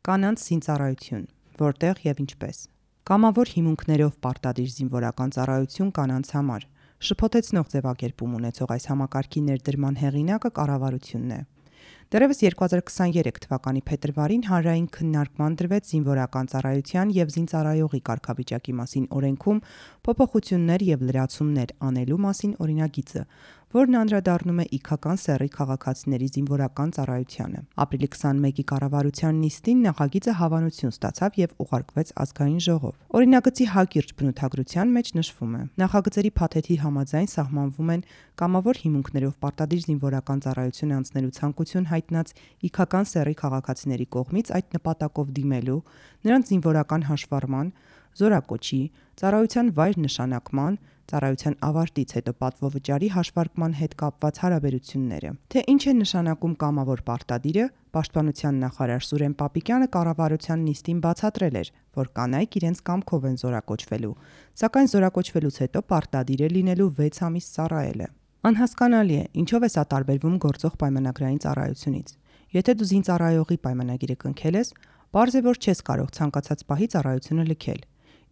Կանանց զինծառայություն, որտեղ եւ ինչպես։ Կամավոր հիմունքներով պարտադիր զինվորական ծառայություն կանանց համար։ Շփոթեցնող ձևակերպում ունեցող այս համակարգի ներդրման հեղինակը կառավարությունն է։ Դեռևս 2023 թվականի փետրվարին հանրային քննարկման դրվեց զինվորական ծառայության եւ զինծառայողի կարգավիճակի մասին օրենքում փոփոխություններ եւ լրացումներ անելու մասին օրինագիծը, որն անդրադառնում է իգական սեռի քաղաքացիների զինվորական ծառայությանը։ Ապրիլի 21-ի կառավարության նիստին նախագիծը հավանություն ստացավ եւ ուղարկվեց ազգային ժողով։ Օրինագծի հակիրճ բնութագրության մեջ նշվում է. նախագծերի փաթեթի համաձայն սահմանվում են կամավոր հիմունքներով պարտադիր զինվորական ծառայություն անցնելու ցանկություն հայտնած իգական սեռի քաղաքացիների կողմից այդ նպատակով դիմելու, նրանց զինվորական հաշվառման, զորակոչի, ծառայության վայր նշանակման, ծառայության ավարտից հետո պատվովճարի հաշվարկման հետ կապված հարաբերությունները։ Թե ինչ է նշանակում կամավոր պարտադիրը, Պաշտպանության նախարար Սուրեն Պապիկյանը կառավարության նիստին բացատրել էր, որ կանայք իրենց կամքով են զորակոչվելու, սակայն զորակոչվելուց հետո պարտադիր է լինելու 6 ամիս ծառայելը։ Անհասկանալի է, ինչով է սա տարբերվում գործող պայմանագրային ծառայությունից։ Եթե դու զինծառայողի պայմանագիրը կնքել ես, պարզ է, որ չես կարող ցանկացած պահի ծառայությունը լքել։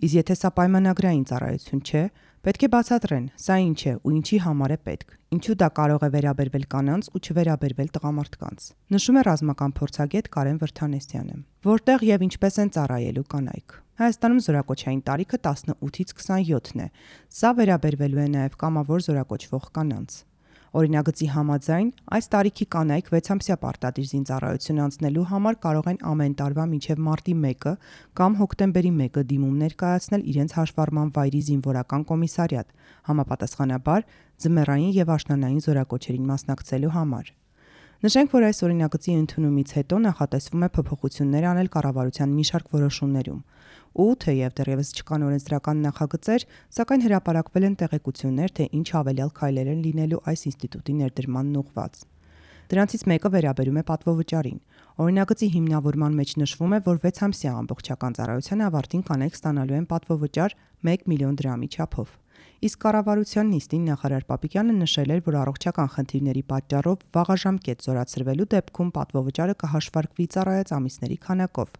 Իսկ եթե սա պայմանագրային ծառայություն չէ, պետք է բացատրեն, սա ինչ է ու ինչի համար է պետք, ինչու դա կարող է վերաբերվել կանանց ու չվերաբերվել տղամարդկանց։ Նշում է ռազմական փորձագետ Կարեն Վրթանեսյանը։ Որտեղ եւ ինչպես են ծառայելու կանայք։ Հայաստանում զորակոչային տարիքը 18-ից 27-ն է։ Սա վերաբերվելու է նաեւ կամավոր զորակոչվող կանանց։ Օրինագծի համաձայն, այս տարիքի կանայք 6-ամսյա պարտադիր զինծառայություն անցնելու համար կարող են ամեն տարվա մինչև մարտի 1-ը կամ հոկտեմբերի 1-ը դիմում ներկայացնել իրենց հաշվառման վայրի զինվորական կոմիսարիատ, համապատասխանաբար ձմեռային եւ աշնանային զորակոչերին մասնակցելու համար։ Նշենք, որ այս օրինագծի ընդունումից հետո նախատեսվում է փոփոխություններ անել կառավարության մի շարք որոշումներում։ Ու թեև դեռևս չկան օրենսդրական նախագծեր, սակայն հրապարակվել են տեղեկություններ, թե ինչ հավելյալ քայլեր են լինելու այս ինստիտուտի ներդրմանն ուղղված։ Դրանցից մեկը վերաբերում է պատվովճարին։ Օրինագծի հիմնավորման մեջ նշվում է, որ 6-ամսյա ամբողջական ծառայության ավարտին կանայք ստանալու են պատվովճար 1 միլիոն դրամի չափով։ Իսկ կառավարության նիստին նախարար Պապիկյանը նշել էր, որ առողջական խնդիրների պատճառով վաղաժամկետ զորացրվելու դեպքում պատվովճարը կհաշվարկվի ծառայած ամիսների քանակով։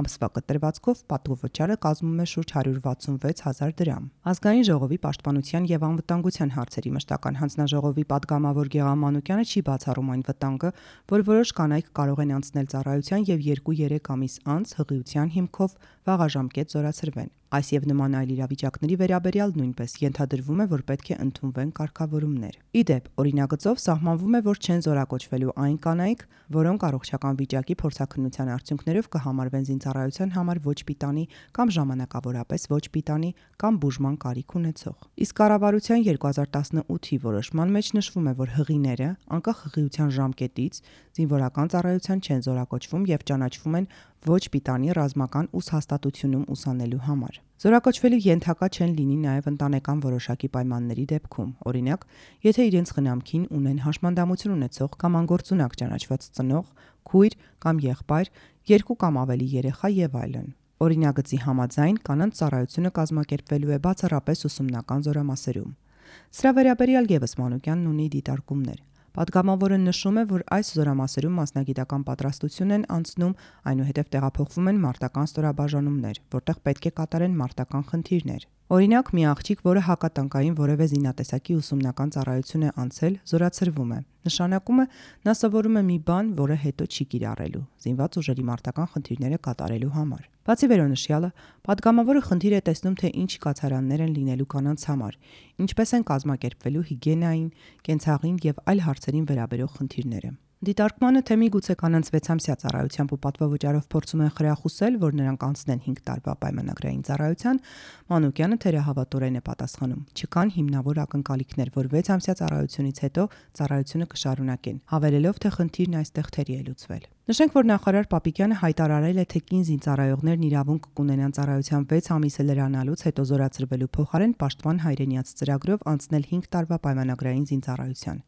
Ամսվա կտրվածքով պատվովճարը կազմում է շուրջ 166,000 դրամ։ Ազգային ժողովի պաշտպանության եւ անվտանգության հարցերի մշտական հանձնաժողովի падգամավոր Գեղամ Մանուկյանը չի բացառում այն վտանգը, որ որոշ կանայք կարող են անցնել ծառայության եւ 2-3 ամիս անց հղիության հիմքով վաղաժամկետ զորացրվեն։ Այս եւ նման այլ իրավիճակների վերաբերյալ նույնպես ենթադրվում է, որ պետք է ընդունվեն կարգավորումներ։ Ի դեպ, օրինագծով սահմանվում է, որ չեն զորակոչվելու այն կանայք, որոնք առողջական վիճակի փորձաքննության արդյունքներով կհամարվեն զինծառայության համար ոչ պիտանի կամ ժամանակավորապես ոչ պիտանի կամ բուժման կարիք ունեցող։ Իսկ կառավարության 2018-ի որոշման մեջ նշվում է, որ հղիները, անկախ հղիության ժամկետից, զինվորական ծառայության չեն զորակոչվում եւ ճանաչվում են ոչ պիտանի ռազմական ուսհաստատությունում ուսանելու համար։ Զորակոչվելու ենթակա չեն լինի նաև ընտանեկան որոշակի պայմանների դեպքում, օրինակ, եթե իրենց խնամքին ունեն հաշմանդամություն ունեցող կամ անգործունակ ճանաչված ծնող, քույր կամ եղբայր, 2 կամ ավելի երեխա եւ այլն։ Օրինագծի համաձայն կանանց ծառայությունը կազմակերպվելու է բացառապես ուսումնական զորամասերում։ Սրա վերաբերյալ եւս Մանուկյանն ունի դիտարկումներ։ Պատգամավորը նշում է, որ այս զորամասերում մասնագիտական պատրաստություն են անցնում, այնուհետև տեղափոխվում են մարտական ստորաբաժանումներ, որտեղ պետք է կատարեն մարտական խնդիրներ։ Օրինակ, մի աղջիկ, որը հակատանկային որևէ զինատեսակի ուսումնական ծառայություն է անցել, զորացրվում է։ Նշանակում է, նա սովորում է մի բան, որը հետո չի կիրառելու, զինված ուժերի մարտական խնդիրները կատարելու համար։ Բացի վերոնշյալը, падգամավորը խնդիր է տեսնում, թե ինչ կացարաններ են լինելու կանանց համար, ինչպես են կազմակերպվելու հիգիենային, կենցաղին եւ այլ հարցերին վերաբերող խնդիրները։ Դիտարկմանը, թե միգուցե կանանց 6-ամսյա ծառայությամբ ու պատվովճարով փորձում են խրախուսել, որ նրանք անցնեն 5 տարվա պայմանագրային ծառայության, Մանուկյանը թերահավատորեն է պատասխանում. չկան հիմնավոր ակնկալիքներ, որ 6-ամսյա ծառայությունից հետո ծառայությունը կշարունակեն, հավելելով, թե խնդիրն այստեղ թերի է լուծվել։ Նշենք, որ նախարար Պապիկյանը հայտարարել է, թե կին զինծառայողներն իրավունք կունենան ծառայության 6 ամիսը լրանալուց հետո զորացրվելու փոխարեն պաշտպան հայրենիաց ծրագրով անցնել 5 տարվա պայմանագրային զինծառայության։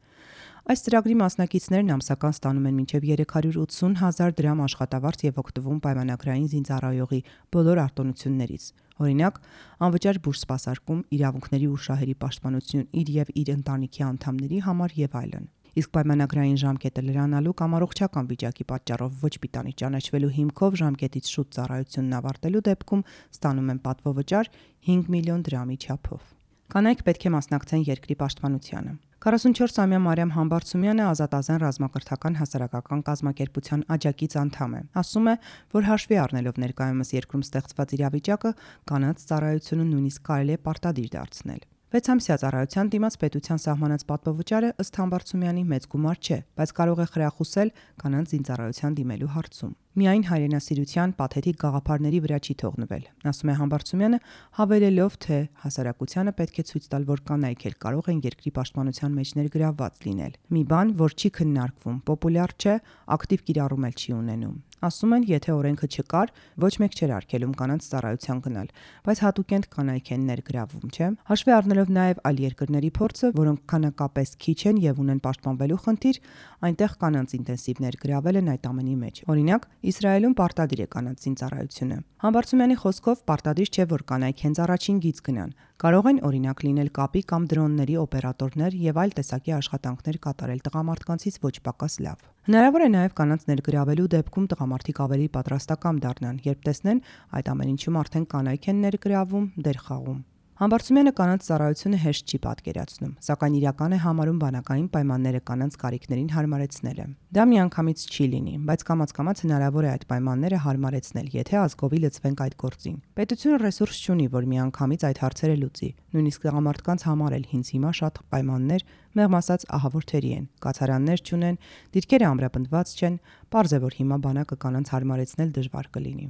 Այս ծրագրի մասնակիցներն ամսական ստանում են մինչև 380,000 դրամ աշխատավարձ եւ օգտվում պայմանագրային զինծառայողի բոլոր արտոնություններից։ Օրինակ, անվճար բուժ սպասարկում, իրավունքների ու շահերի պաշտպանություն իր եւ իր ընտանիքի անդամների համար եւ այլն։ Իսկ պայմանագրային ժամկետը լրանալու կամ առողջական վիճակի պատճառով ոչ պիտանի ճանաչվելու հիմքով ժամկետից շուտ ծառայությունն ավարտելու դեպքում ստանում են պատվովճար 5 միլիոն դրամի չափով։ Կանայք պետք է մասնակցեն երկրի պաշտպանությանը։ 44-ամյա Մարիամ Համբարձումյանը ազատազեն ռազմակրթական հասարակական կազմակերպության աջակից անդամ է։ Ասում է, որ հաշվի առնելով ներկայումս երկրում ստեղծված իրավիճակը, կանանց ծառայությունը նույնիսկ կարելի է պարտադիր դարձնել։ 6 ամսյա ծառայության դիմաց պետության սահմանած պատվովճարը ըստ Համբարձումյանի մեծ գումար չէ, բայց կարող է խրախուսել կանանց զինծառայության դիմելու հարցում։ Միայն հայրենասիրության պաթետիկ գաղափարների վրա չի թողնվել, ասում է Համբարձումյանը, հավելելով, թե հասարակությանը պետք է ցույց տալ, որ կանայք էլ կարող են երկրի պաշտպանության մեջ ներգրավված լինել։ Մի բան, որ չի քննարկվում, պոպուլյար չէ, ակտիվ կիրառում էլ չի ունենում։ Ասում են, եթե օրենքը չկար, ոչ մեկ չէր արգելում կանանց ծառայության գնալ, բայց հատուկենտ կանայք են ներգրավում, չէ՞։ Հաշվի առնելով նաև այլ երկրների փորձը, որոնք քանակապես քիչ են եւ ունեն պաշտպանվելու խնդիր, այնտեղ կանանց ինտենսիվ ներգրավել են այդ ամենի մեջ։ Օրինակ, Իսրայելում պարտադիր է կանանց զինծառայությունը։ Համբարձումյանի խոսքով պարտադիր չէ, որ կանայք հենց առաջին գիծ գնան։ Կարող են օրինակ լինել կապի կամ դրոնների օպերատորներ եւ այլ տեսակի աշխատանքներ կատարել տղամարդկանցից ոչ պակաս լավ։ Հնարավոր է նաև կանանց ներգրավելու դեպքում տղամարդիկ ավելի պատրաստակամ դառնան, երբ տեսնեն այդ ամեն ինչում արդեն կանայք են ներգրավում, դեր խաղում։ Համբարձումյանը կանանց ծառայությունը հեշտ չի պատկերացնում, սակայն իրական է համարում բանակային պայմանները կանանց կարիքներին հարմարեցնելը։ Դա միանգամից չի լինի, բայց կամաց-կամաց հնարավոր է այդ պայմանները հարմարեցնել, եթե ազգովի լծվենք այդ գործին։ Պետությունը ռեսուրս չունի, որ միանգամից այդ հարցերը լուծի։ Նույնիսկ տղամարդկանց համար էլ հինց հիմա շատ պայմաններ, մեղմ ասած, ահավոր թերի են, կացարաններ չունեն, դիրքերը ամրապնդված չեն, պարզ է, որ հիմա բանակը կանանց հարմարեցնել դժվար կլինի։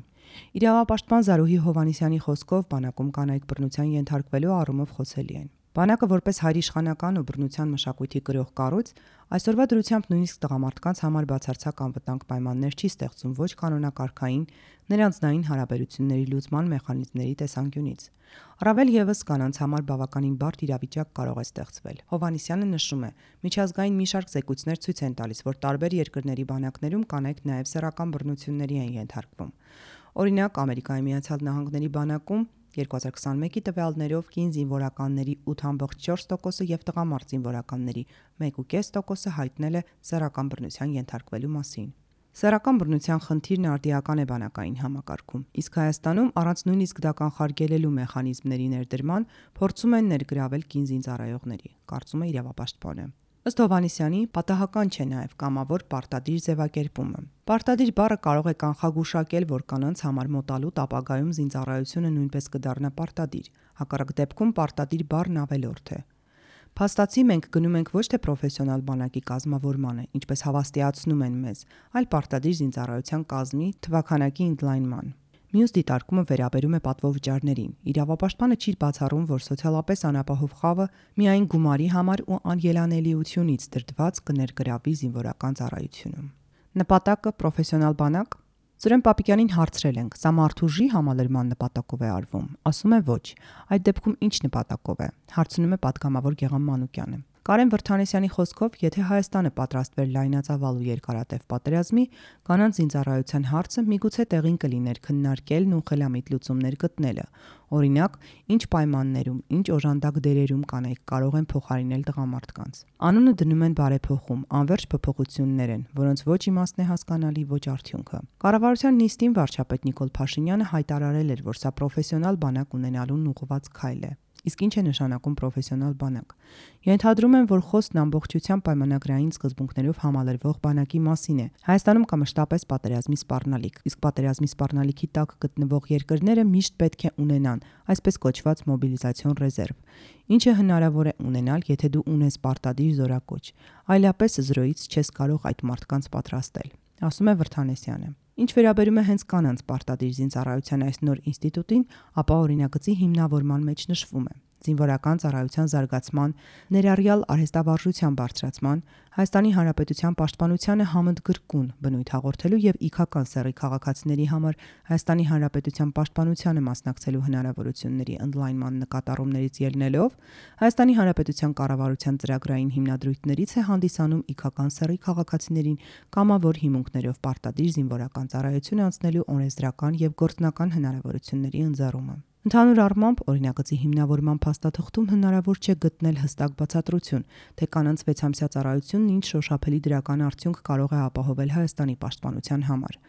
Իրավապաշտպան Զարուհի Հովհաննիսյանի խոսքով բանակում կանայք բռնության ենթարկվելու առումով խոցելի են։ Բանակը որպես հայրիշխանական ու բռնության մշակույթի կրող կառույց այսօրվա դրությամբ նույնիսկ տղամարդկանց համար բացարձակ անվտանգ պայմաններ չի ստեղծում ոչ կանոնակարգային, նրանցնային հարաբերությունների լուծման մեխանիզմների տեսանկյունից։ Առավել եւս կանանց համար բավականին բարդ իրավիճակ կարող է ստեղծվել։ Հովհաննիսյանը նշում է, միջազգային մի շարք զեկույցներ ցույց են տալիս, որ տարբեր երկրների բանակներում կանայք նաեւ սեռական բռնությունների են ենթարկվում։ Օրինակ, Ամերիկայի Միացյալ Նահանգների բանակում 2021-ի տվյալներով կին զինվորականների 8.4%-ը եւ տղամարդ զինվորականների 1.5%-ը հայտնել է սեռական բռնության ենթարկվելու մասին։ Սեռական բռնության խնդիրն արդիական է բանակային համակարգում, իսկ Հայաստանում առանց նույնիսկ դա կանխարգելելու մեխանիզմների ներդրման փորձում են ներգրավել կին զինծառայողների, կարծում է իրավապաշտպանը։ Ըստ Հովհաննիսյանի, պատահական չէ նաև կամավոր պարտադիր ձևակերպումը։ Պարտադիր բառը կարող է կանխագուշակել, որ կանանց համար մոտալուտ ապագայում զինծառայությունը նույնպես կդառնա պարտադիր, հակառակ դեպքում պարտադիր բառն ավելորդ է։ Փաստացի մենք գնում ենք ոչ թե պրոֆեսիոնալ բանակի կազմավորմանը, ինչպես հավաստիացնում են մեզ, այլ պարտադիր զինծառայության կազմի թվաքանակի ընդլայնման։ Մյուս դիտարկումը վերաբերում է պատվովճարներին։ Իրավապաշտպանը չի բացառում, որ սոցիալապես անապահով խավը միայն գումարի համար ու անելանելիությունից դրդված կներգրավի զինվորական ծառայությունում։ Նպատակը պրոֆեսիոնալ բանակ։ Սուրեն Պապիկյանին հարցրել ենք, սա մարդուժի համալրման նպատակով է արվում։ Ասում է ոչ։ Այդ դեպքում ինչ նպատակով է։ Հարցնում է պատգամավոր Գեղամ Մանուկյանը։ Կարեն Վրթանեսյանի խոսքով, եթե Հայաստանը պատրաստվեր լայնածավալ ու երկարատև պատերազմի, կանանց զինծառայության հարցը միգուցե տեղին կլիներ քննարկելն ու խելամիտ լուծումներ գտնելը։ Օրինակ, ինչ պայմաններում, ինչ օժանդակ դերերում կանայք կարող են փոխարինել տղամարդկանց։ Անունը դնում են բարեփոխում, անverջ փոփոխություններ են, որոնց ոչ իմաստն է հասկանալի, ոչ արդյունքը։ Կառավարության նիստին վարչապետ Նիկոլ Փաշինյանը հայտարարել էր, որ սա պրոֆեսիոնալ բանակ ունենալուն ուղղված քայլ է։ Իսկ ինչ է նշանակում պրոֆեսիոնալ բանակ։ Ենթադրում են, որ խոսքն ամբողջությամբ պայմանագրային սկզբունքներով համալրվող բանակի մասին է։ Հայաստանում կա մշտապես պատերազմի սպառնալիք, իսկ պատերազմի սպառնալիքի տակ գտնվող երկրները միշտ պետք է ունենան այսպես կոչված մոբիլիզացիոն ռեզերվ, ինչը հնարավոր է ունենալ, եթե դու ունես պարտադիր զորակոչ, այլապես զրոյից չես կարող այդ մարդկանց պատրաստել, ասում է Վրթանեսյանը։ Ինչ վերաբերում է հենց կանանց պարտադիր զինծառայության այս նոր ինստիտուտին, ապա օրինագծի հիմնավորման մեջ նշվում է զինվորական ծառայության զարգացման, ներառյալ արհեստավարժության բարձրացման, Հայաստանի Հանրապետության պաշտպանությանը համընդգրկուն բնույթ հաղորդելու եւ իքական սեռի քաղաքացիների համար Հայաստանի Հանրապետության պաշտպանությանը մասնակցելու հնարավորությունների ընդլայնման նկատառումներից ելնելով Հայաստանի Հանրապետության կառավարության ծրագրային հիմնադրույթներից է հանդիսանում իքական սեռի քաղաքացիներին կամավոր հիմունքներով պարտադիր զինվորական ծառայություն անցնելու օրենսդրական եւ գործնական հնարավորությունների ընձեռումը։ Ընդհանուր առմամբ, օրինագծի հիմնավորման փաստաթղթում հնարավոր չէ գտնել հստակ բացատրություն, թե կանանց 6-ամսյա ծառայությունն ինչ շոշափելի դրական արդյունք կարող է ապահովել Հայաստանի պաշտպանության համար։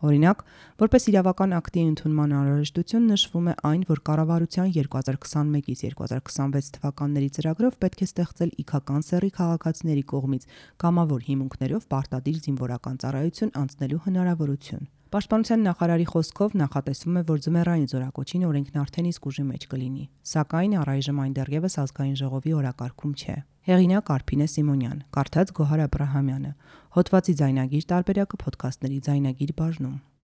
Օրինակ, որպես իրավական ակտի ընդունման անհրաժեշտություն նշվում է այն, որ կառավարության 2021-ից 2026 թվականների ծրագրով պետք է ստեղծել իգական սեռի քաղաքացիների կողմից կամավոր հիմունքներով պարտադիր զինվորական ծառայություն անցնելու հնարավորություն։ Պաշտպանության նախարարի խոսքով նախատեսվում է, որ ձմեռային զորակոչին օրենքն արդեն իսկ ուժի մեջ կլինի, սակայն առայժմ այն դեռևս ազգային ժողովի օրակարգում չէ։ Հեղինակ Արփինե Սիմոնյան, կարդաց Գոհար Աբրահամյանը, հոդվածի ձայնագիր տարբերակը ոդքասթների ձայնագիր բաժնում։